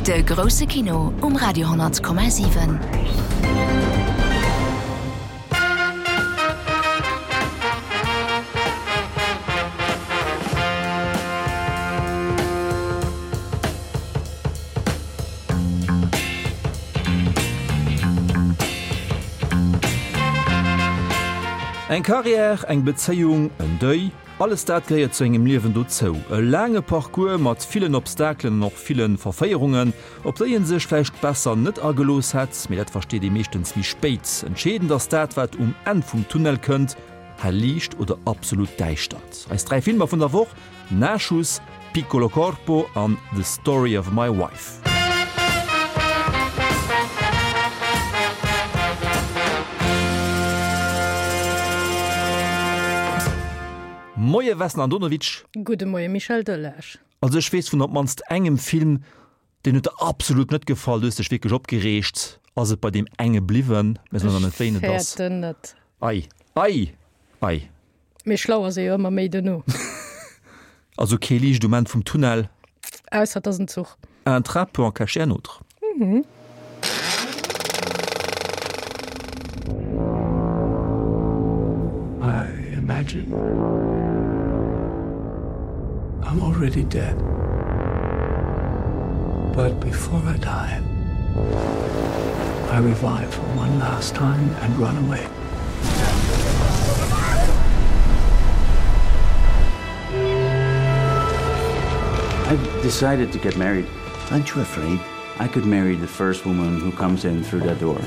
De grousse Kino um Radio 10,7. Eng Carrière, eng Bezéiung, en Deuil, alles dat gehéiert zu engem Liewen dozou. E laange Parcours mat villen Obstakelen an och ville Verféierungen, op déi ee sech vläicht besser net agelooss hätt, mee dat versteet ee meeschtens méi spéit. Entscheedend ass dat, wat um Enn vum Tunnel kënnt, hell Liicht oder absolut Däischtert. Eis 3 Filmer vun der Woch. Nachschuss, Piccolo Corpo an The Story of My Wife. Moie Vesna Andonovic. Gudde Moie Michel Delage. Also ech weess vun op mannst engem Film, deen huet der absolut net gefall, du hues dech wierklech opgereegt. Ass et bei deem enge bliwwen? Mir soen nach net wéin et ass. Ech fäerten net. Ei, ei, ei. Mee schlau ass ee jo ëmmer méi duerno. Also kee Liicht um Enn vum Tunnel. Ausser et ass en Zuch. Un train peut en cacher un autre. I imagine I'm already dead. But before I die, I revive for one last time and run away. I've decided to get married. Aren't you afraid? I could marry the first woman who comes in through that door.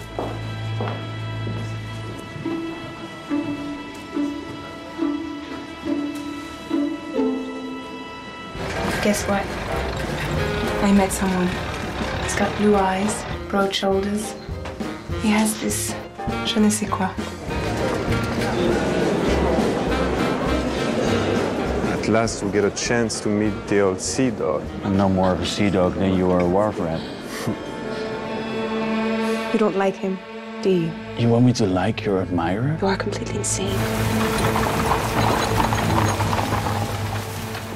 Guess what? I met someone. He's got blue eyes, broad shoulders. He has this je ne sais quoi. At last we get a chance to meet the old sea dog. I'm no more of a sea dog than you are a wharf rat. You don't like him, do you? You want me to like your admirer? You are completely insane.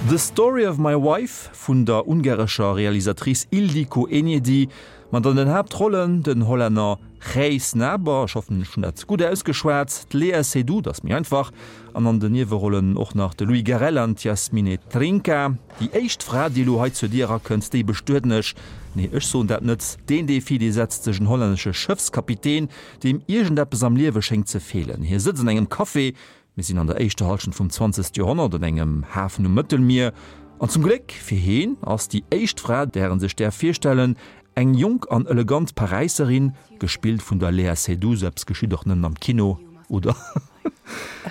The Story of My Wife vun der ungarescher Realisatrice Ildikó Enyedi, mat an den Haaptrollen den Hollänner Gijs Naber, ech hoffen ech hunn dat gutt ausgeschwat, d'Léa Seydoux, dat ass méi einfach, an an den Niewerollen och nach de Louis Garrel an d'Yasmine Trinca. Déi éischt Fra, déi elo hei zur Dier erakënnt, déi bestueden ech. Nee, ech soen dat net. Deen Defi, dee setzt sech en hollännesche Schëffskapitän, deem iergendeppes am Liewe schéngt ze feelen. Hie sëtzt an engem Café, mir sinn an der éischter Hallschent vum zwanzegste Joerhonnert, an engem Hafen um Mëttelmier. An zum Gléck fir heen ass déi éischt Fra, där en sech däerf virstellen, eng jonk an elegant Paräisserin, gespillt vun der Léa Seydoux. Sou eppes geschitt och nëmmen am Kino, oder?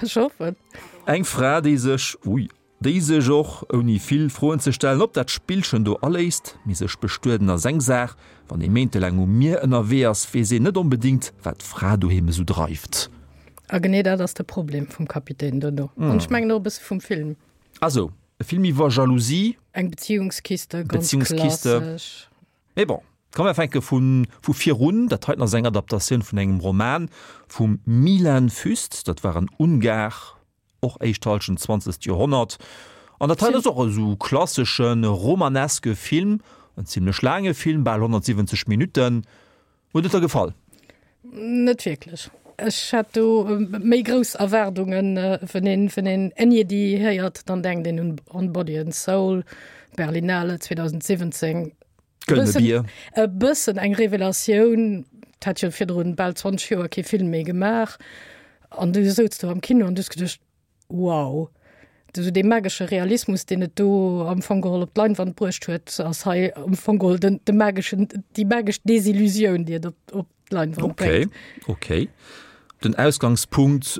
Ech hoffen. Eng Fra, déi sech, ui, déi sech och, ouni vill Froen ze stellen, op dat Spillchen do aléisst. Mee sech bestueden ass eng Saach, wann ee méintelaang um Mier ënnerwee ass, weess een net onbedéngt, wat d'Fra doheem esou dreift. A genee dat ass de Problem vum Kapitän dono. An ech mengen och e bësse vum Film. Also, e Film iwwer Jalousie. Eng Beziehungskiste, ganz Beziehungskiste. klassesch. Mee bon, komm mer fänke vu vu virun. Dat heiten ass eng Adaptatioun vun engem Roman vum Milan Füst. Dat war en Ungar, och éischt Hallschent zwanzegt Joerhonnert. An dat heiten ass och esou klassesche romaneske Film, en zimlech laange Film, bal 170 Minutten. Huet et der gefall? Net wierklech. Ech hat do méi grouss Erwaardungen. Wann een, wann een Enyedi héiert, dann denkt een un On Body and Soul, Berlinale 2017. Gëllene Bier. E bëssen eng Revelatioun. Et hat jo virdrun bal 20 Joer kee Film méi gemaach. An du souz do am Kino an du hues geduecht, Wow! Esou dee magesche Realismus, deen et do am Fong geholl op d'Leinwand bruecht huet, ass hei am Fong geholl den, de mageschen, déi magesch Desillusioun, déi et op, op d'Leinwand bréngt. Okay, okay. Den Ausgangspunkt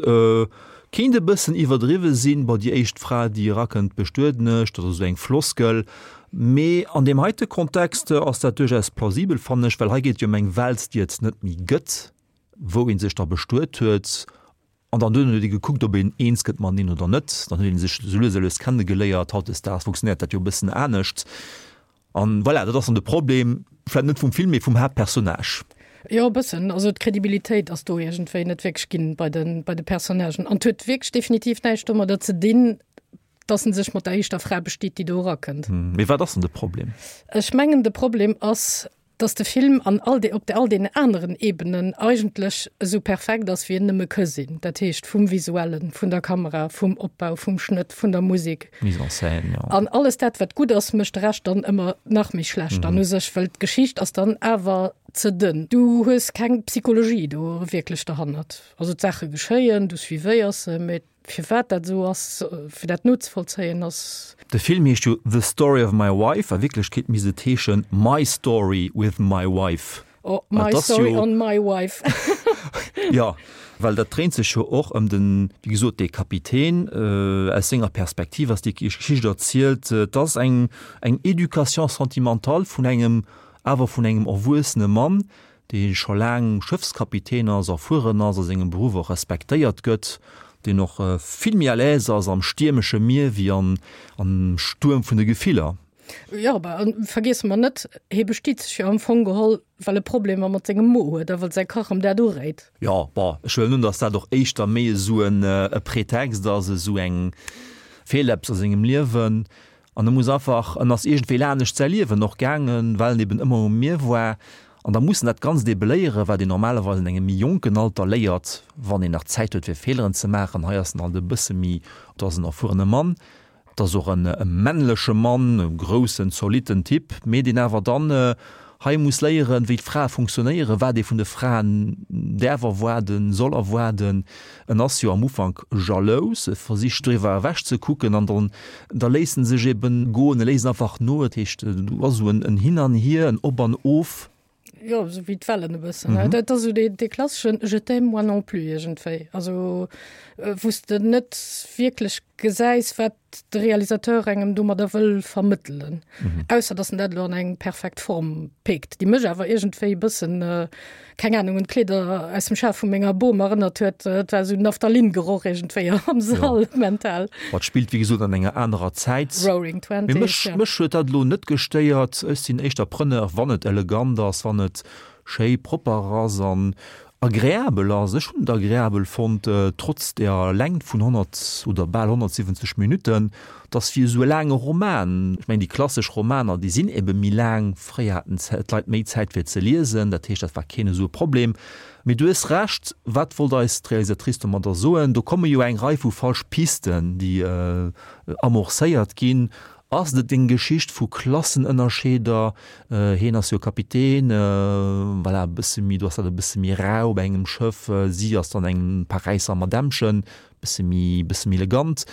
kéint e bëssen iwwerdriwwe sinn, bon, déi éischt Fra, déi erakënnt, bestueden ech, dat ass esou eng Floskel, mee an deem heite Kontext ass dat duerchaus plausibel, fannen ech, well hei geet et jo ëm eng Welt, déi et net méi gëtt, wou ee sech da bestuet huet. An dann duerno huet ee gekuckt, ob een eens gëtt mateneen oder net. Dann huet ee sech esou lues a lues kennegeléiert. Hautdesdaags funktionéiert dat jo e bëssen anescht. An voilà, dat ass dann de Problem, vläicht net vum Film, mee vum Haaptpersonnage. Jo, e bëssen. Also d'Credibilitéit ass do iergendwéi net wierklech ginn bei de, bei de Personnagen. An et huet wierklech definitiv näischt domadder ze dinn. Dass en sech mat der éischter Fra bestiet, déi do erakënnt. Mee wat ass dann de Problem? Ech mengen, de Problem ass, dass de Film an all de, op all deenen aneren Ebenen eigentlech esou perfekt ass, wéi en nëmme ka sinn. Dat heescht vum Visuellen, vun der Kamera, vum Opbau, vum Schnëtt, vun der Musek. Mise en scène, jo. An alles dat, wat gutt ass, mécht de Rescht dann ëmmer nach méi schlecht dann u sech, well d'Geschicht ass dann awer ze dënn. Du hues keng Psychologie do wierklech derhannert. Also d'Saache geschéien, du suivéiers se, mee Firwat dat esou ass, fir dat nozevollzéien, ass. De Film heescht jo The Story of my Wife, a Wierklechkeet misst et heeschen My Story with my Wife. Oh, My Story on my Wife. Jo, well dat dréint sech jo och ëm den, wéi gesot, dee Kapitän. Aus senger Perspektiv ass déi Geschicht erzielt. Et ass eng, eng Éducation sentimentale vun engem, awer vun engem erwuessene Mann, dee scho laang Schëffskapitän ass, erfueren ass, a sengem Beruff och respektéiert gëtt, deen och vill méi à l'aise ass am stiermesche Mier wéi am Stuerm vun de Gefiller. Jo, a vergiesse mer net, hie bestiet sech jo am Fong geholl, well e Problemer mat sengem Mo huet a well säi Kach em dat uréit. Jo, bon, ech huelen un, datt dat och éischter méi esou e Pretext ass, esou eng feelt eppes a sengem Liewen. An e muss einfach, en ass iergendwéi lanescht säi Liewen och gaangen, well en eben ëmmer um Mier war. An da muss en dat Ganzt ebe léieren, wat een normalerweis an engem méi jonken Alter léiert, wann een nach Zäit huet fir Feeleren ze maachen. Hei ass en halt e bësse méi, et ass en erfuerene Mann, et ass och en männleche Mann, e groussen, zolitten Typ, mee deen awer dann hei muss léieren, wéi d'Frae funktionéieren, wat ee vun de Fraen däerf erwaarden, soll erwaarden. En ass jo am Ufank jalous, e versicht driwwer ewech ze kucken an dann da léisst en sech eben goen, e léisst einfach no. Dat heescht, do ass esou en Hin an Hier, en Op an Of. Jo, esou wéi d'Wellen e bëssen. Dat ass esou dee klasseschen Je t'aime moi non plus iergendwéi. Also wou s de net wierklech gesäis, wat de Realisateur engem domadder wëll vermëttelen. Ausser datt en dat elo an eng perfekt Form péckt, déi mech awer iergendwéi e bëssen, keng Anung, un d'Kleeder aus dem Schaf vu menger Bom erënnert huet. Et war esou Naphthalin-Geroch iergendwéi am Sall, mental. Ma et spillt wéi gesot an enger anerer Zäit. Roaring Twenties, Mee mech, ja. mech huet dat elo net gestéiert. Ech sinn éischter Preneur, wann et elegant ass, wann et schéi propper ass an agreabel ass. Ech hunn et agreabel fonnt, trotz der Längt vun 100 oder bal 170 Minutten. Et ass wéi esou e laange Roman. Ech mengen, déi klassesch Romaner, déi sinn ebe méi laang. Fréier haten d'Leit méi Zäit fir ze liesen, dat heescht, dat war keen esou e Problem. Mee du hues Recht, wat wollt eis d'Realisatrice domadder soen? Do komme jo eng Rei vu falsch Pisten, déi amorcéiert ginn. Ass et eng Geschicht vu Klassenënnerscheeder? Hien ass jo Kapitän, voilà, e bësse méi, do ass dat e bësse méi rau op engem Schëff, si ass dann eng Paräisser Madämmchen, bësse méi, bësse méi elegant.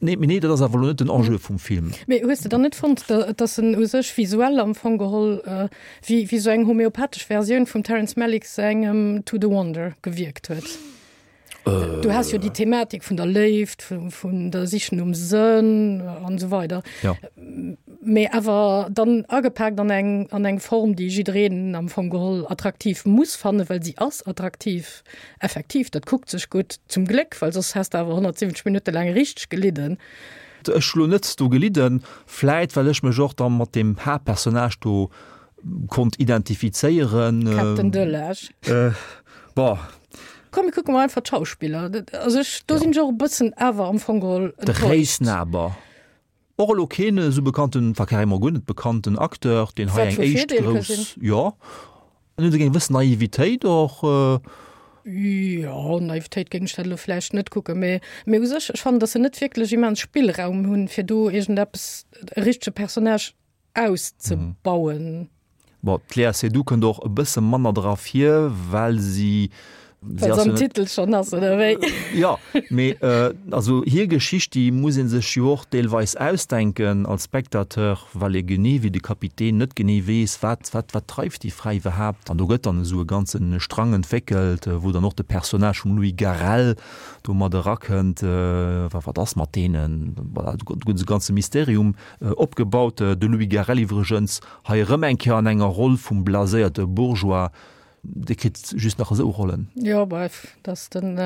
Nee, mee nee, dat ass awer elo net den Enjeu vum Film. Mee hues de dann net fonnt, datt en u sech visuell am Fong geholl wéi, wéi sou eng homeopathesch Versioun vum Terrence Malick sengem To the Wonder gewierkt huet? Du has jo déi Thematik vun der Léift, vun der Sich nom Sënn an esou weider. Ja. Mee awer dann agepaakt an eng, an eng Form, déi jiddereen am Fong geholl attraktiv muss fannen, well si ass attraktiv, effektiv, dat kuckt sech gutt, zum Gléck, well soss häss de awer 170 Minutte laang richteg gelidden. Ech hu lo net do gelidden, vläit well ech mech och da mat deem Haaptpersonnage do konnt identifizéieren. Captain Delage. Bon. Komm mir kucke mol einfach d'Schauspiller. Also ech, do sinn ech och e bëssen awer am Fong geholl De enttäuscht. Réisnaber. Och elo keen esou bekannten, enfin carrément guer net bekannten Acteur, deen hei Wat eng vu éischt Virdeel ka grouss, sinn. jo, en huet eng gewëss Naivitéit och. Jo, Naivitéit géing ech dat elo vläicht net kucken, mee, mee u sech, ech fannen, datt se net wierklech immens Spillraum hunn, fir do iergendeppes, e richtege Personnage auszebauen. Bon, d'Léa Seydoux kënnt och e bësse manner dra vir, well si, si ass jo net. Titel schonn ass, oder wéi? Jo, mee also hir Geschicht, déi muss ee sech jo och deelweis ausdenken als Spectateur, well ee genee wéi de Kapitän net genee weess, wat, wat, wat dreift déi Fra iwwerhaapt. An do gëtt dann esou e ganze Strang entwéckelt, wou dann och de Personnage vum Louis Garrel do mat erakënnt, wa wat ass mat deenen? Voilà, do gëtt esou e ganze Mysterium Opgebaut. De Louis Garrel iwwregens hei erëm eng Kéier an enger Roll vum blaséierte Bourgeois, dee kritt just nach esou Rollen. Jo, bref, dass den,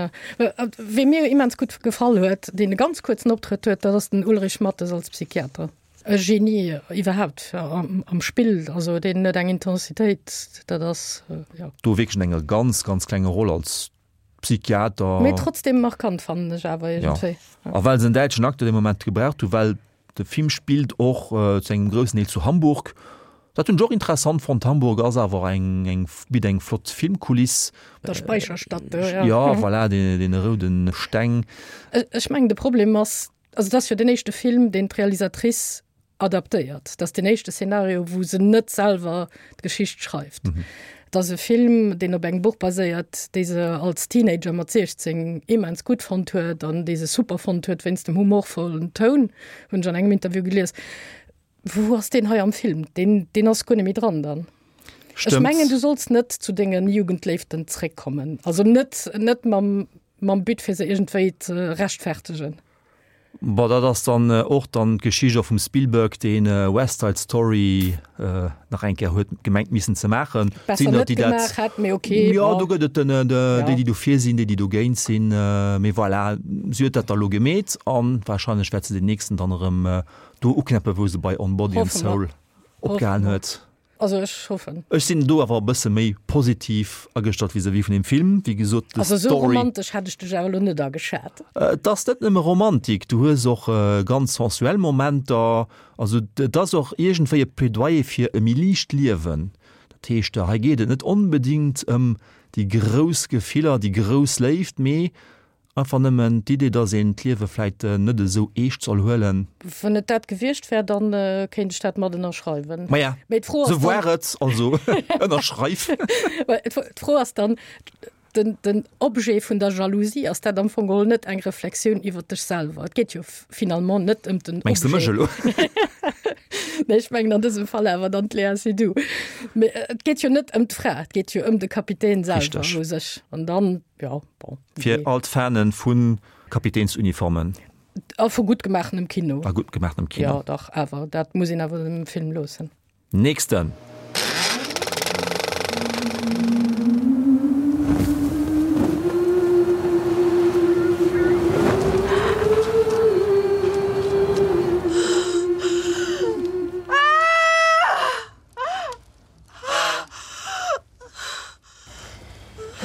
wee mir immens gutt gefall huet, deen e ganz kuerzen Optrëtt huet, dat ass den Ulrich Matthes als Psychiater. E Genie iwwerhaapt am Spill, also deen huet eng Intensitéit, dat ass, jo. Do wierklech an enger ganz, ganz klenger Roll als. Psychiater. Mee trotzdem markant fannen ech awer iergendwéi. Ja. A well se en däitschen Acteur dee Moment gebraucht hu, well de Film spillt och zu engem groussen Deel zu Hamburg. Dat hunn ech och interessant fonnt. Hamburg ass awer eng, eng, bitt eng flott Filmkuliss. Der Speicherstadt do, ja. Ja, voilà, dee, deene roude Steng. Ech mengen de Problem ass, also et ass jo den éischte Film, deen d'Realisatrice adaptéiert. Dat ass den éischte Szenario, wou se net selwer d'Geschicht schreift. Et ass e Film, deen op engem Buch baséiert, dee se als Teenager mat 16 immens gutt fonnt huet an dee se super fonnt huet wéinst dem humorvollen Toun, hunn ech an engem Interview gelies. Wou ass deen hei am Film? Deen, deen ass guer net méi dran dann. Ech mengen, du solls net zu denge Jugendléiften zréckkommen. Also net, net mam, mam But, fir se iergendwéi ze rechtfertegen. Bon, dat ass dann och dann d'Geschicht och vum Spielberg, deen West Side Story nach eng Kéier huet gemengt missen ze maachen. Besser net gemaach hätt, mee ok. Jo, do gëtt et den, déi, déi dofir sinn, déi, déi dogéint sinn. Mee voilà, si huet dat da lo gemeet a warscheinlech wäert se den nächsten dann erëm do uknäppen, wou se bei On Body and Soul opgehalen huet. Also ech hoffen. Ech sinn do awer e bësse méi positiv agestallt vis-à-vis vun deem Film. Wéi gesot, de Also esou Story. romantesch hätt ech dech awer elo net ageschat. Et ass net nëmme Romantik, du hues och ganz sensuell Momenter. Also et ass och iergendwéi e Plädoyer fir e méi liicht Liewen. Dat heescht, hei geet et net onbedéngt ëm déi grouss Gefiller, déi grouss Léift, mee Einfach nëmmen d'Idee, dass een d'Liewe vläit net esou eescht soll huelen. Wann et dat gewiescht wär, dann kéint ech dat mat ënnerschreiwen. Maja, sou war et, also ënnerschreif. D'Fro ass dann, den, den Objet vun der Jalousie, ass dat am Fong geholl net eng Reflexioun iwwer dech selwer? Et geet jo finalement net ëm den Objet. Mengs de mech elo? Nee, ech mengen an dësem Fall awer dann d'Léa Seydoux. Mee et geet jo net ëm d'Fra, et geet jo ëm de Kapitän selwer u sech. An dann, jo, bon. Fir all d'Fanen vu Kapitänsuniformen. A vu gutt gemaachenem Kino. A gutt gemaachenem Kino. Jo, dach, awer dat muss een awer dem Film loossen. Nächsten!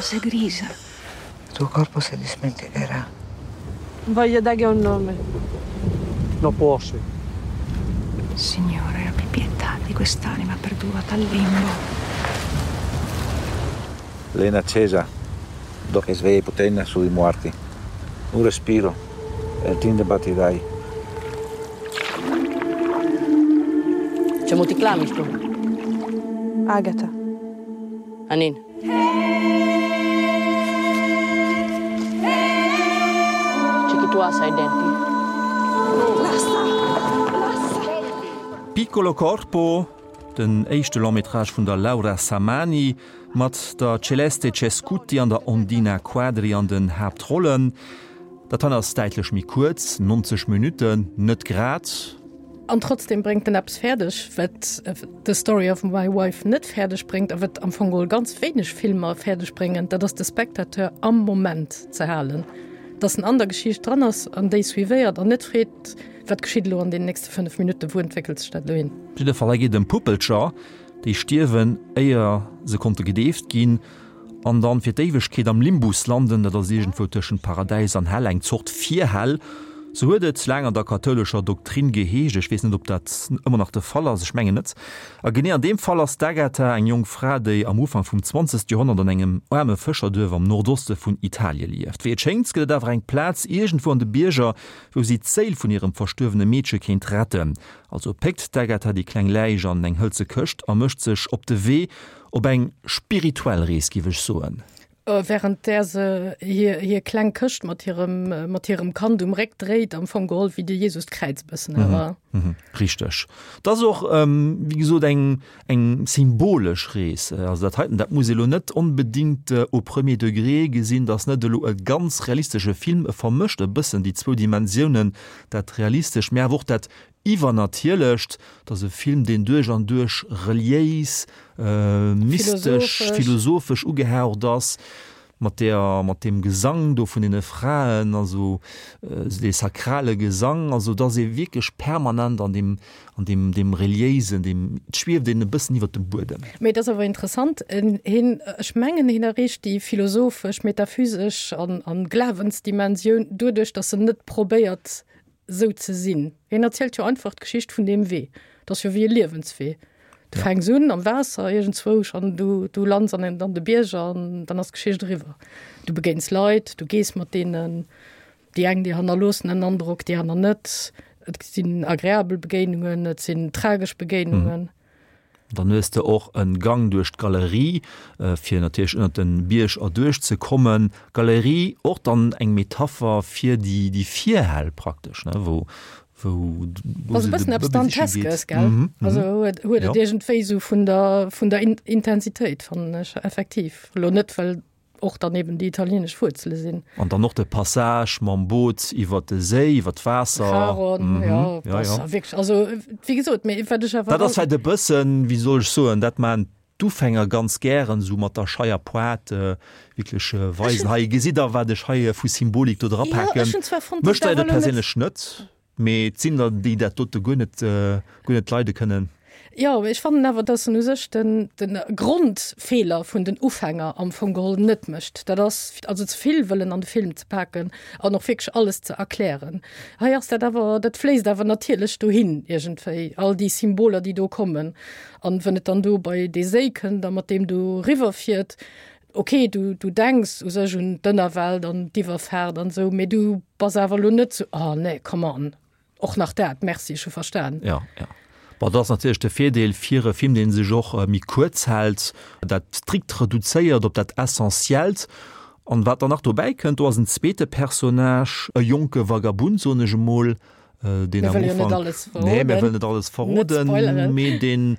Sei grigia. Il tuo corpo si dimenticherà. Voglio dare un nome. No può sì. Signore, abbi pietà di quest'anima perduta al limbo. Lena accesa, do che sveglia potenna sui morti. Un respiro, e il tinde battirai. C'è ti clami tu? Agata. Anin. C'è chi tu hai denti? Lassa! Lassa! Piccolo Corpo, den éischte Long-métrage vun der Laura Samani, mat der Celeste Cescutti an der Ondina Quadri an den Haaptrollen. Dat hei ass däitlech méi kuerz, 90 Minutten, net grad. An trotzdem bréngt en eppes fäerdeg, wat The Story of My Wife net fäerdeg bréngt a wat am Fong geholl ganz wéineg Filmer fäerdeg bréngen, dat ass de Spectateur am Moment ze halen, dass en an der Geschicht dran ass an déi suivéiert an net freet, wat geschitt elo an den nächste 5 Minutten, wou entwéckelt sech dat elo hin. Op jidde Fall, hei geet et ëm Puppelcher, déi stierwen, éier se konnte gedeeft ginn. An dann fir d'Éiwegkeet am Limbus landen, dat ass iergendwou tëschent Paradäis an Hell, eng Zort Virhell. Sou huet et laang an der kathoulescher Doktrin geheescht. Ech weess net, ob dat ëmmer nach de Fall ass, ech mengen net. A genee an deem Fall ass d'Agatha eng jonk Fra, déi am Ufank vum zwanzegste Joerhonnert an engem aarme Fëscherduerf am Nordoste vun Italie lieft. Wéi et schéngt, gëtt et awer eng Plaz iergendwou an de Bierger, wou si d'Séil vun hirem verstuerwene Meedche kéint retten. Also péckt d'Agatha déi kleng Läich an eng hëlze Këscht a mécht sech op de Wee, Op eng spirituell Rees, giff ech soen. Während där se hir, hir kleng Këscht mat hirem, mat hirem Kand um Réck dréit, am Fong geholl wéi de Jesus d'Kräiz e bëssen awer. Richteg. Et ass och, wéi gesot, eng, eng symbolesch Rees. Also dat heiten, dat muss ee lo net onbedingt au premier degré gesinn. Dat ass net elo e ganz realistesche Film. E vermëscht e bëssen déi zwou Dimensiounen, dat Realistescht, mä awer och dat Iwwernatierlecht, et ass e Film, deen duerch an duerch reliéis, mystesch, philosophesch ugehaucht ass. Mat der, mat deem Gesang do vun deene Fraen, also dee sakrale Gesang, also et ass ee wierklech permanent an deem, an deem, deem reliéisen, deem, et schwieft een e bëssen iwwert dem Buedem. Mee et ass awer interessant, hien, ech mengen, hien erreecht déi philosophesch, metaphysesch an, an Glawensdimensioun doduerch, datt en net probéiert, sou ze sinn. Hien erzielt jo einfach d'Geschicht vun deem Wee. Et ass jo wéi e Liewenswee. Du fänks un am Waasser iergendzwousch an du, du lands an an de Bierger an dann ass d'Geschicht eriwwer. Du begéins Leit, du gees mat deenen, déi eng déi hannerloossen en Androck, déi aner net. Et sinn agreabel Begéinungen, et sinn tragesch Begéinungen. Dann hues de och en Gang duerch d'Galerie, fir natierlech ënnert den Bierg erduerch ze kommen. Galerie och dann eng Metapher fir déi déi Virhäll praktesch, ne, wou wou wou se de Bëbel siche geet. Gell? Mhm, also huet huet et iergendwéi sou vun der vun der Intensitéit fannen ech effektiv. Elo net well och dann eben déi italienesch Wuerzele sinn. An dann och de Passage mam Boot iwwer de Séi, iwwer d'Waasser. Charon, mhm. ja, ja, ja. Wierklech, also wéi gesot, mee wat ech awer. Dat ass vläicht e bëssen, wéi soll ech soen, dat maachen d'Ufänger ganz gären, esou mat der scheier Pointe wierklech weisen, hei gesitt der, wat ech hei vu Symbolik do drapaken. Mech stéiert et perséinlech net. Mee et sinn der, déi dat dote guer net, guer net leide kënnen. Jo, ech fannen awer, dass en u sech den, de Grondfeeler vun den Ufänger am Fong geholl net mécht. Dat ass also ze vill wëllen an de Film ze paken an och wierklech alles ze erklären. Hei ass dat awer, dat fléisst awer natierlech dohin iergendwéi, all déi Symboler, déi do kommen. An wën et dann do bei dee Séi kënnt a mat deem do riwwerfiert, Ok, du, du denks u sech un d'Ënnerwelt an d'Iwwerfaart an esou, mee du bass awer elo net sou, oh nee, come on, och nach dat, merci, ech hu verstan. Ja, ja. Bon, dat ass natierlech de Virdeel fir e Film, dee sech och méi kuerz hält, dat strikt reduzéiert op dat Essentiellt. An wat dann nach dobäi kënnt, do ass en zweete Personnage, e jonke Vagabund, soen ech emol, deen am Ufank, nee, mir wëllen net alles verroden, mee deen,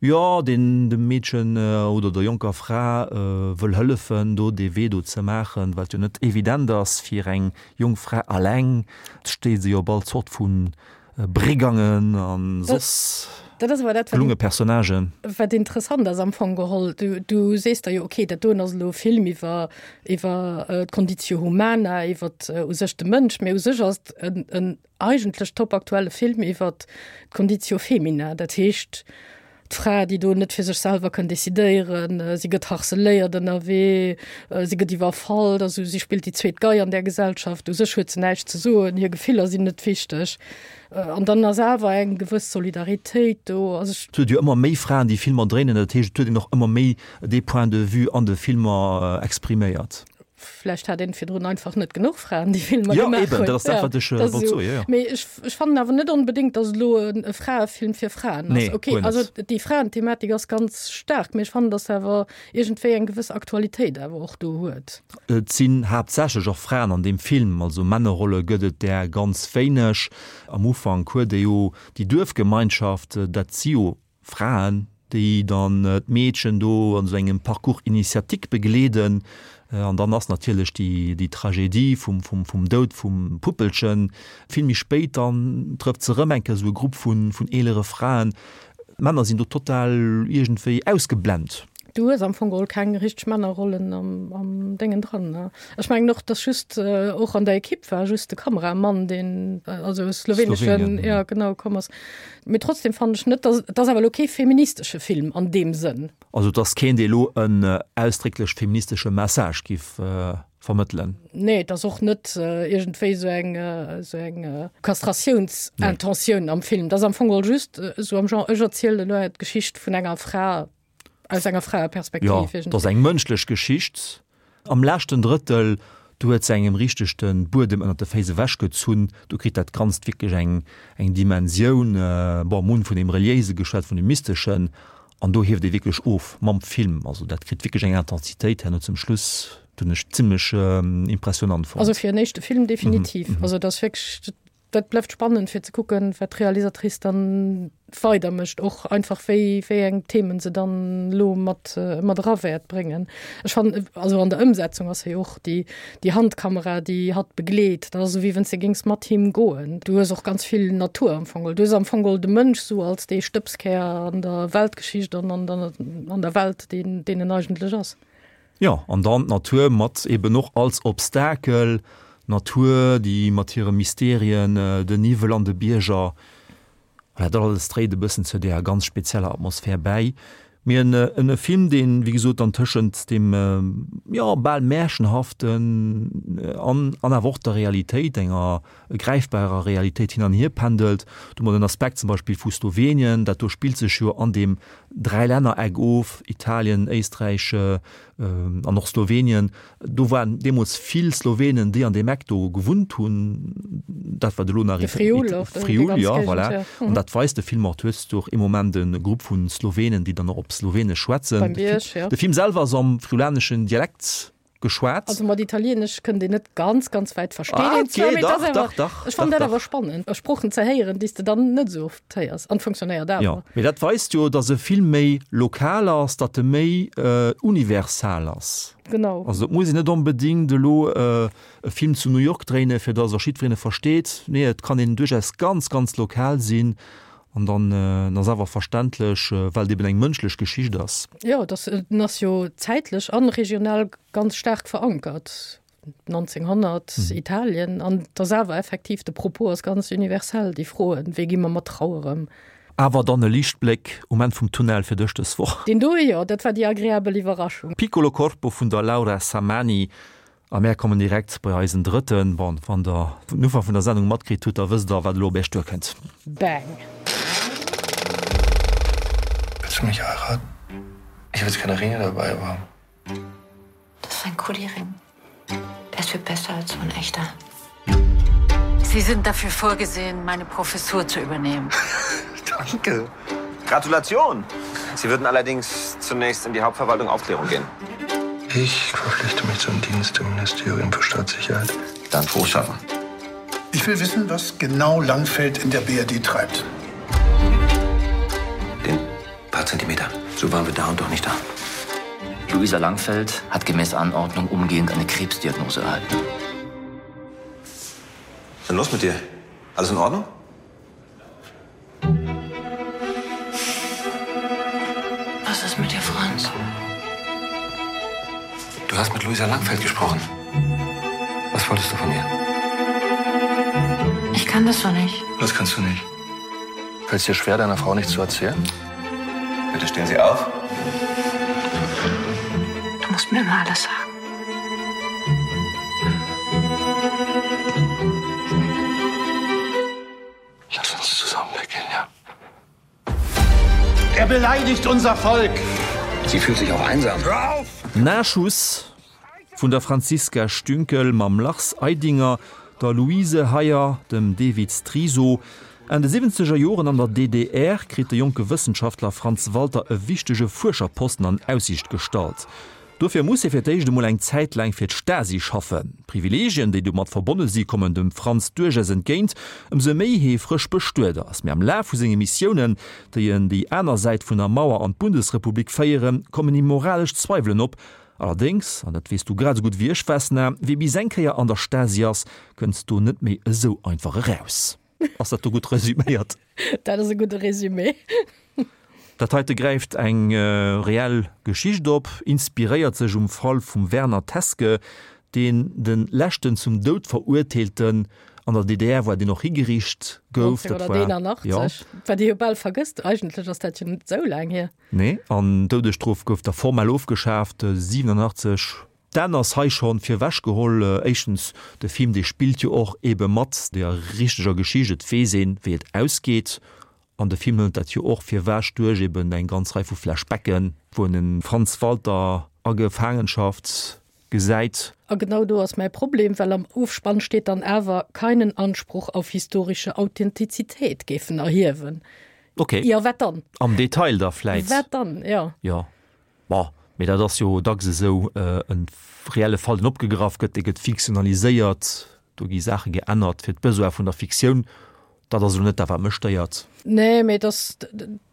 jo, deen dem Meedchen oder der jonker Fra wëll hëllefen, do dee Wee do ze maachen, wat jo net evident ass fir eng jonk Fra alleng. Et steet se jo op all Zort vu Brigangen a soss gelunge Personnagen. Wat interessant ass am Fong geholl, du, du sees der jo, okay, dat doen ass elo e Film iwwer, iwwer d'Conditio humana, iwwer u sech de Mënsch, mee u sech ass et en, en eigentlech topaktuelle Film iwwer d'Conditio femina, dat heescht d'Fra, déi do net fir sech selwer kënn decidéieren, si gëtt harceléiert ënnerwee, si gëtt iwwerfall, also si spillt déi zweet Gei an där Gesellschaft, u sech huet se näischt ze soen, hir Gefiller sinn net wichteg. An dann ass awer eng gewëss Solidaritéit do. Also ech. Et huet jo ëmmer méi Fraen, déi Filmer dréinen, dat heescht, et huet een och ëmmer méi dee Point de vue an de Filmer expriméiert. Vläicht hat een virdrun einfach net genuch Fraen, déi Filmer ja, gemaach eben, hunn. Dat ass dat, wat ech ja, wollt soen. Ja, ja. Mee ech, ech fannen awer net onbedéngt, datt elo en, e Fraefilm fir Fraen ass. Nee, okay, also déi Fraenthematik ass ganz staark, mee ech fannen, datt awer iergendwéi eng gewëss Aktualitéit awer och do huet. Et sinn haaptsächlech och Fraen an deem Film, also Männerrolle gëtt et där ganz wéineg. Am Ufank huet ee jo déi Duerfgemeinschaft, dat si jo Fraen, déi dann d'Meedchen do an esou engem Parcours initiatique begleeden. An dann ass natierlech déi, déi Tragedie vum, vum, vum Doud vum Puppelchen. Vill méi spéit dann trëfft se erëm eng Kéier esou e Grupp vun, vun eelere Fraen. D'Männer sinn do total iergendwéi ausgeblent. Du hues am Fong geholl keng richteg Männerrollen am, am Déngen dran, ne? Ech mengen och, dass just och an der Ekipp war just de Kameramann, deen, also e sloweneschen, ja genau, komm ass. Mee trotzdem fannen ech net, dass, et ass awer elo kee feministesche Film an deem Sënn. Also et ass keen, dee elo en ausdrécklech feministesche Message giff vermëttelen. Nee, et ass och net iergendwéi esou eng, esou eng Kastratiounsintention am Film. Et ass am Fong geholl just esou am Genre, ech erzielen elo d'Geschicht vun enger Fra aus enger Fraeperspektiv. Jo, et ass eng mënschlech Geschicht. Am leschten Drëttel, do huet se engem richteg de Buedem ënnert de Féiss ewechgezunn. Do kritt dat Ganzt wierklech eng, eng Dimensioun. Bon, mir hunn vun deem Reliéise geschwat, vun deem Mysteschen, an do hieft ee wierklech of mam Film. Also dat kritt wierklech eng Intensitéit herno zum Schluss, dat hunn ech zimmlech impressionant fonnt. Also fir en éischte Film definitiv. Also et ass wierklech, Dat bleift spannend fir ze kucken, wat d'Realisatrice dann weider mécht, och einfach wéi wéi eng Themen se dann elo mat mat era wäert bréngen. Ech fannen also an der Ëmsetzung ass hei och déi déi Handkamera, déi hatt begleet, dat ass esou wéi wann s de géings mat him goen. Du hues och ganz vill Natur am Fong geholl. Du hues am Fong geholl de Mënsch esou als dee Stëbskär an der Weltgeschicht an an der an der Welt, deen deen en eigentlech ass. Jo, an dann d'Natur mat eben och als Obstakel, d'Natur, déi mat hire Mysterien, den Niwwel an de Bierger, voilà, dat alles dréit e bëssen zu deeër ganz spezieller Atmosphär bäi. Mee en e Film, deen, wéi gesot, dann tëschent deem, jo, bal Märchenhaften an an awer och der Realitéit, enger gräifbarer Realitéit hin an hier pendelt. Do hu mer den Aspekt zum Beispill vu Slowenien, dat do spillt sech jo an deem Dräilännereck of, Italien, Éisträich an och Slowenien. Do waren deemools vill Slowenen, déi an deem Eck do gewunnt hunn, dat wat elo nach De Friul och, déi Friul, ganz ja, Géigend, voilà. ja. An dat weist de Film och. Du hues do och ee Moment e Grupp vu Slowenen, déi dann och op Slowenesch schwätzen. Beim Bierg, ja. De Film selwer ass am friulaneschen Dialekt geschwat. Also mat Italienesch kënnt een net ganz, ganz wäit versteet Ah, een zwar, okay, mee et dach, ass awer, dach, dach, ech fannen dach, dat awer dach. spannend, Sproochen ze héieren, déi s de dann net esou oft héiers, an funktionéiert awer. Jo, mee dat weist jo, datt e Film méi lokal ass, datt e méi universal ass. Genau. Also et muss een net onbedéngt elo e Film zu New York dréinen, fir datt och jiddwereen e versteet. Nee, et kann een duerchaus ganz, ganz lokal sinn an dann en ass awer verständlech, well et eben eng mënschlech Geschicht ass. Jo, et ass, en ass jo zäitlech an regional ganz staark verankert, 1900, Italien, an et ass awer effektiv, de Propos ass ganz universell, déi Froen, wéi gi mer mat Trauer ëm? Awer dann e Liichtbléck um Enn vum Tunnel fir dech dës Woch. Deen do, jo, dat war déi agreabel Iwwerraschung. Piccolo Corpo vun der Laura Samani. A mär kommen direkt bei eisen drëtten. Bon, wann der den Ufank vun der Sendung matkritt hutt, da wësst der, wat elo op iech duerkënnt. Bang! Willst du mich heiraten? Ich habe jetzt keine Ringe dabei, aber. Das ist ein Kuli-Ring. Der ist viel besser als so ein echter. Sie sind dafür vorgesehen, meine Professur zu übernehmen. Danke. Gratulation! Sie würden allerdings zunächst in die Hauptverwaltung Aufklärung gehen. Ich verpflichte mich zum Dienst im Ministerium für Staatssicherheit. Dann froh schaffen. Ich will wissen, was genau Langfeld in der BRD treibt. Den paar Zentimeter. So waren wir da und doch nicht da. Luisa Langfeld hat gemäß Anordnung umgehend eine Krebsdiagnose erhalten. Dann los mit dir. Alles in Ordnung? Was ist mit dir, Franz? Du hast mit Luisa Langfeld gesprochen. Was wolltest du von ihr? Ich kann das so nicht. Das kannst du nicht. Fällt es dir schwer, deiner Frau nichts zu erzählen? Bitte stehen Sie auf. Du musst mir immer alles sagen. Lass uns zusammen weggehen, ja. Er beleidigt unser Volk. Sie fühlt sich auch einsam. Hör auf! Nachschuss vun der Franziska Stünkel mam Lars Eidinger, der Luise Heyer, dem Devid Striesow. Enn de siwwenzeger Joren an der DDR kritt de jonke Wëssenschaftler Franz Walter e wichtege Fuerscherposten an Aussiicht gestallt. Dofir muss hie fir d'éischt emol eng Zäit laang fir d'Stasi schaffen. D'Privileegien, déi domat verbonne si, kommen dem Franz duerchaus entgéint, ëmsou méi hie frësch bestuet ass. Mee am Laf vu senge Missiounen, déi en déi aner Säit vun der Mauer an d'Bundesrepublik féieren, kommen him moralesch Zweiwelen op. Allerdéngs, an dat weess du grad esou gutt wéi ech, Vesna, wie bis eng Kéier an der Stasi ass, kënnt do net méi esou einfach eraus. Ass dat do gutt resüméiert? Dat ass e gudde Resumé. Dat heite gräift eng reell Geschicht op, inspiréiert sech um Fall vum Werner Teske, deen de leschten zum Doud Verurteelten an der DDR war, deen och higeriicht gouf. Dat war 1981, wat ee jo bal vergësst. Eigentlech ass dat jo net esou laang hier. Nee, an d'Doudesstrof gouf da formell ofgeschaaft 87. D'Enn ass hei schonn virwech geholl. Éischtens, de Film dee spillt jo och ebe mat der richteger Geschicht, et weess een wéi et ausgeet an de Film hëlt dat jo och virwech duerch eben eng ganz Rei vu Flashbacken, wou en de Franz Walter a Gefaangenschaft gesäit. A genau do ass mäi Problem, well am Ofspann steet dann awer, keinen Anspruch auf historische Authentizität géifen erhiewen. Ok. Jo, wat dann? Am Detail da vläit. Wat dann, jo. Jo. Bon, mee dat ass jo dacks esou, e reelle Fall, deen opgegraff gëtt, dee gëtt fiktionaliséiert, do gi Saache geännert fir d'Besoin vun der Fiktioun. Dat ass elo net dat, wat mech stéiert. Nee, mee et ass,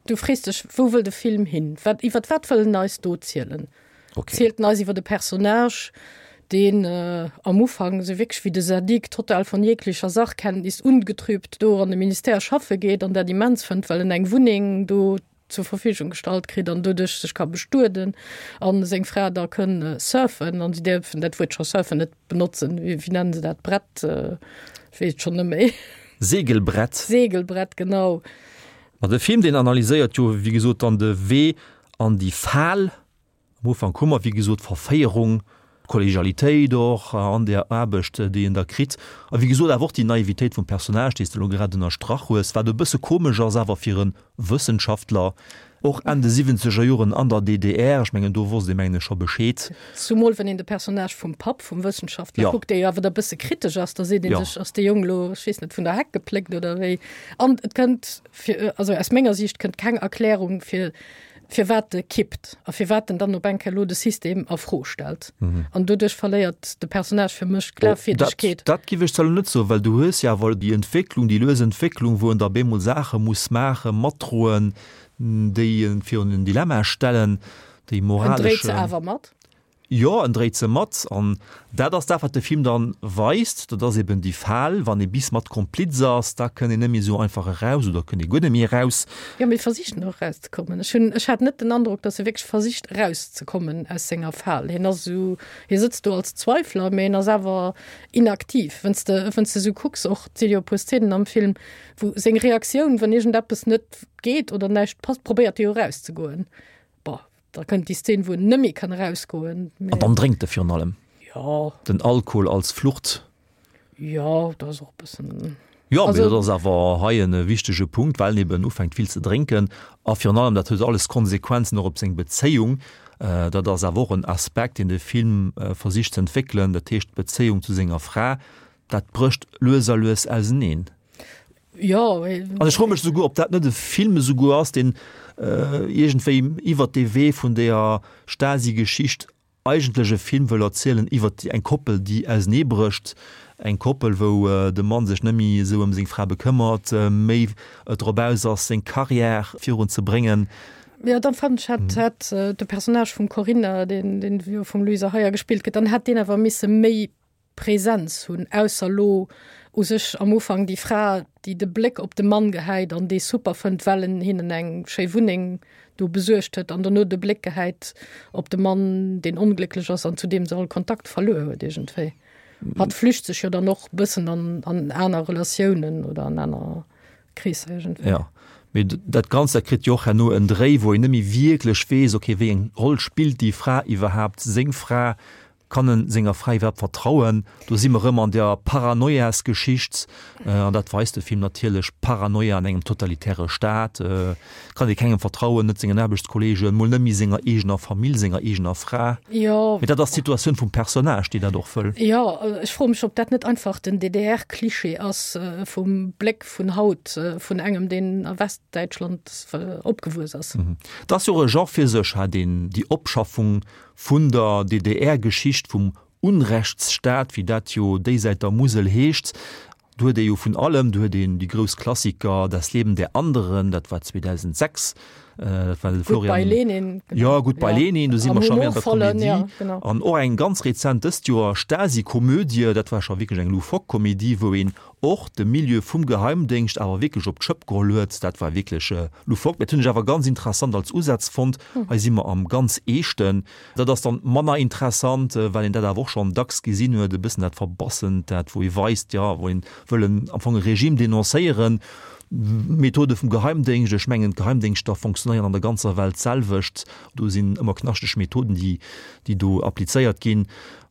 du frees dech, wou wëll de Film hin? Wat, iwwer wat wëll en eis do zielen? Okay. Zielt en eis iwwer e Personnage, deen am Ufank esou wierklech wéi de Sadik total von jeglicher Sachkenntnis ungetrübt do an de Ministère schaffe geet an dat immens fënnt, well en eng Wunneng do. zur Verfügung gestallt kritt an doduerch sech ka bestueden an seng Fra da kënn surfen an si däerfen dat Wuert scho surfen net benotzen, wéi nennen se dat Brett, ech weess et schonn net méi. Segelbrett. Segelbrett, genau. Ma de Film, deen analyséiert jo wéi gesot dann de Wee an déi Fal. Am Ufank hu mer, wéi gesot, d'Verféierung, d'Kollegialitéit och an där Aarbecht, déi en da kritt, a wéi gesot awer och déi Naivitéit vum Personnage, déi s de elo grad ënnerstrach hues, wat e bësse komesch ass awer fir e Wëssenschaftler, och Enn de siwwenzeger Joren an der DDR. Ech mengen, do wosst ee mengen ech scho Bescheed. Zumol wann een de Personnage vum Papp vum Wëssenschaftler kuckt, dee jo awer da bësse kritesch ass, da seet ee sech, ass dee Jong elo, ech weess net, vun der Heck gepléckt oder wéi? An et kënnt fir, also aus menger Siicht kënnt keng Erklärung fir, firwat e kippt a firwat en dann op eng Kéier elo de System a Fro stellt. An doduerch verléiert de Personnage fir mech d'Glafwierdegkeet. Dat giff ech zwar elo net soen, well du hues jo awer déi Entwécklung, déi lues Entwécklung, wou en da bemol Saache muss maachen, matdroen, déi en virun en Dilemma stellen, déi moraleschen. En dréit se awer mat. Jo, en dréit se mat. An dat ass dat, wat de Film dann weist. Dat ass eben déi Fal, wann ee bis mat Kompliz ass, da kënn een net méi esou einfach eraus oder kënn ee guer net méi eraus. Jo, mee versicht en och erauszekommen. Ech hunn, ech hat net den Androck, datt e wierklech versicht erauszekommen aus senger Fal. Hien ass esou, hie sëtzt do als Zweifler, mee en ass awer inaktiv. Wann s de, wann s de esou kucks, och, et si jo e puer Szenen am Film, wou seng Reaktioun, wann iergendeppes net geet oder näischt passt, probéiert e jo erauszegoen. Bon, Da kënnt déi Szene, wou en net méi kann erausgoen. An dann drénkt e virun allem. Jo. Den Alkohol als Flucht. Jo, dat ass och e bëssen. Jo, mee dat ass awer hei e wichtege Punkt, well en eben ufänkt vill ze drénken. A virun allem, dat huet alles Konsequenzen och op seng Bezéiung. Dat ass awer och en Aspekt, deen de Film versicht ze entwéckelen, dat heescht d'Bezéiung zu senger Fra. Dat brécht lues a lues auseneen. Jo. An ech froe mech esouguer, ob dat net e Film esouguer ass, deen iergendwéi iwwert dee Wee vun deeër Stasi-Geschicht eigentlech e Film wëll erzielen iwwert eng Koppel, déi auseneebrécht, eng Koppel, wou de Mann sech net méi esou ëm seng Fra bekëmmert, méi drop aus ass, seng Carrière virun ze bréngen. Jo, dann fannen ech, hätt, hätt de Personnage vum Corinna, deen, deen jo vum Luisa Heuer gespillt gëtt, dann hätt deen awer misse méi Präsenz hunn, ausser lo u sech am Ufank déi Fra, déi de Bléck op de Mann gehäit an dee super fënnt, well en hinnen eng schéi Wunneng do besuergt huet, an dono de Bléck gehäit op de Mann, deen onglécklech ass an zu deem se all Kontakt verluer huet iergendwéi. Hatt flücht sech jo dann och bëssen an an aner Relatiounen oder an aner Kreesser iergendwéi. Jo, mee dat Ganzt, dat kritt jo och herno en Dréi, wou een net méi wierklech weess, okay, wéi eng Roll spillt déi Fra iwwerhaapt, seng Fra, Kann en senger Fra iwwerhaapt vertrauen? Do si mer rëm an der Paranoiasgeschicht, an dat weist de Film natierlech, Paranoia an engem totalitäre Staat, kann ee kengem vertrauen, net sengen Aarbechtskollegen, mol net méi senger eegener Famill, senger eegener Fra. Jo. Mee dat ass d'Situatioun vum Personnage, déi dat och wëll. Jo, ech froe mech, ob dat net einfach den DDR-Klischee ass vum Bléck vun haut, vun engem, deen a Westdäitschland opgewuess ass. Et ass jo och e Genre fir sech, hat een déi Opschaffung Vun der DDR-Geschicht vum Unrechtsstaat, wéi dat jo déisäit der Musel heescht, do huet ee jo vun allem, do huet een déi grouss Klassiker Das Leben der Anderen, dat war 2006, dat war de Florian. Goodbye Lenin. Jo, Goodbye Lenin, do si mer scho méi an der Komedie. An och eng ganz rezent dëst Joer, Stasi-Komödie, dat war scho wierklech eng loufoque Komedie, wou een och de Milieu vum Geheimdéngscht awer wierklech op d'Schëpp geholl huet. Dat war wierklech loufoque, mä dat hunn ech awer ganz interessant als Usaz fonnt. Hei si mer am ganz Eeschten. Dat ass dann manner interessant, well een dat awer och schonn dacks gesinn huet, e bëssen dat Verbassent, dat wou ee weist, jo, wou een wëll en am Fong e Regime denoncéieren. Methode vum Geheimdéngscht, ech mengen d'Geheimdéngschter fonctionnéieren an der ganzer Welt d'selwecht. Do sinn ëmmer knaschteg Methoden, déi, déi do applizéiert ginn.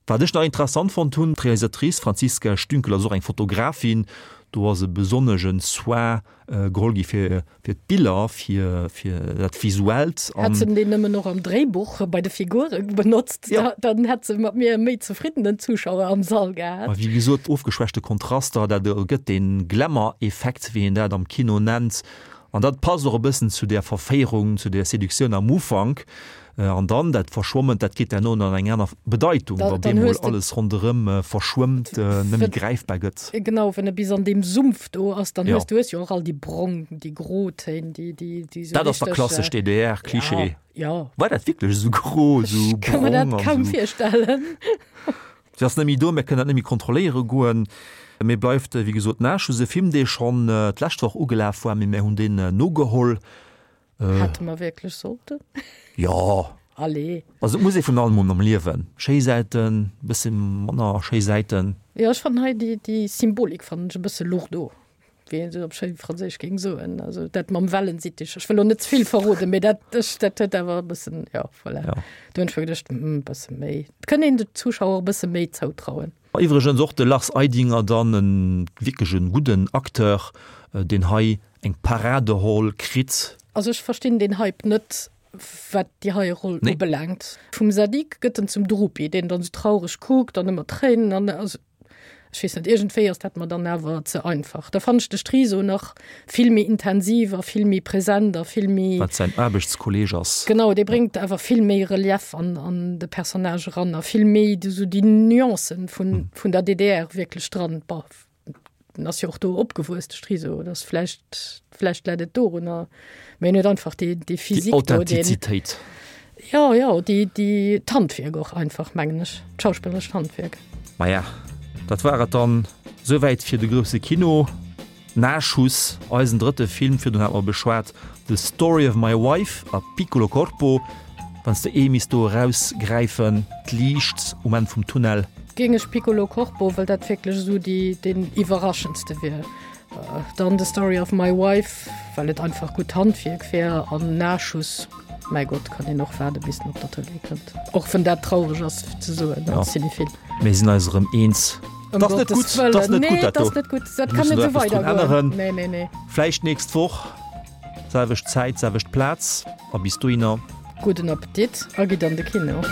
Wat ech nach interessant fonnt hunn, d'Realisatrice Franziska Stünkel ass och eng Fotografin, do ass e besonnegen Soin geholl gi fir fir d'Biller, fir fir dat Visuellt. Hätt se deen nëmmen och am Dréibuch bei de Figure benotzt, dann hätt se mat mir e méi zefriddenen Zuschauer am Sall gehat. Ma wéi gesot, ofgeschwächte Kontraster, dat ergëtt dee Glamour-Effekt, wéi een dat am Kino nennt. An dat passt och e bëssen zu där Verféierung, zu där Seduktioun am Ufank. An dann dat Verschwomment, dat kritt herno dann eng aner Bedeitung, wa bemol alles ronderëm verschwëmmt, net méi gräifbar gëtt. Genau, wann e bis an deem Sumpf do ass, dann hues du hues jo och all déi brong, déi gro Téin, déi, déi, déi esou richteg. Dat ass da klassesch DDR-Klischee. Jo. War dat wierklech esou gro, esou brong? Ech ka mer dat kaum virstellen. Si ass net méi do, mir kënnen dat net méi kontrolléiere goen. Mee bleift, wéi gesot, Nachschus, e Film, dee schonn d'lescht Woch ugelaf war, mee mir hunn deen nogeholl. Hätte mer wierklech sollten? Jo. Allez. Also et muss ee vun allem hunn am Liewen. Schéi Säiten, e bësse manner schéi Säiten. Jo, ech fannen hei déi, déi Symbolik fannen ech e bësse lourdeau, wéi een se op schéi Franséisch géing soen. Also dat mam Wellensittich. Ech wëll elo net ze vill verroden, mee dat, ech, dat huet awer e bëssen, jo, voilà. Jo. Do hunn ech mer geduecht, hm, e bësse méi. Et kënnt een de Zuschauer e bësse méi zoutrauen. Iwwregens och de Lars Eidinger dann e wierklech e gudden Acteur, deen hei eng Paraderoll kritt. Also ech verstinn deen Hype net wat déi hei Roll ubelaangt. Vum Zadig gëtt en zum Drupi, deen dann sou traureg kuckt an ëmmer Tréinen an also ech weess net, iergendwéi ass dat mer dann awer ze einfach. Da fannen ech de Striso nach vill méi intensiv a vill méi present a vill méi. Wat säin Aarbechtskolleeg ass. Genau, dee bréngt awer vill méi Relief an an de Personnage eran a vill méi esou déi Nuancen vun vun der DDR wierklech dran. Bon, en ass jo och do opgewuess, de Striso, dat ass vläicht, vläicht läit et dorunner, mä en huet einfach déi déi Physik do, deen. Déi Authentizitéit. Jo, jo, déi déi d'Handwierk och einfach, mengen ech, d'schauspillerescht Handwierk. Maja, dat war et dann souwäit fir de grousse Kino. Nachschuss, eisen drëtte Film, virdrun hate mer beschwat The Story of My Wife a Piccolo Corpo. Wann s de ee misst do erausgräifen, d'Liicht um Enn vum Tunnel. Géing ech Piccolo Corpo, well dat wierklech esou déi deen iwwerraschendste wier. Dann The Story of My Wife, well et einfach gutt Handwierk wär an Nachschuss, mäi Gott, kann een och waarde bis en op der Tëlee kënnt. Och wann dat traureg ass ze soen als Cinephil. Mir sinn eis erëm eens. Ëm T'ass net Gottes gutt, Wëllen. t'ass net Nee, gutt dat t'ass do. net gutt. Dat Mir kann mussen net do esou eppes drun weidergoen. änneren. Nee, nee, nee. Vläicht d'nächst Woch, selwecht Zäit, selwecht Plaz a bis dohinner. Gudden Appetit a gitt an de Kino.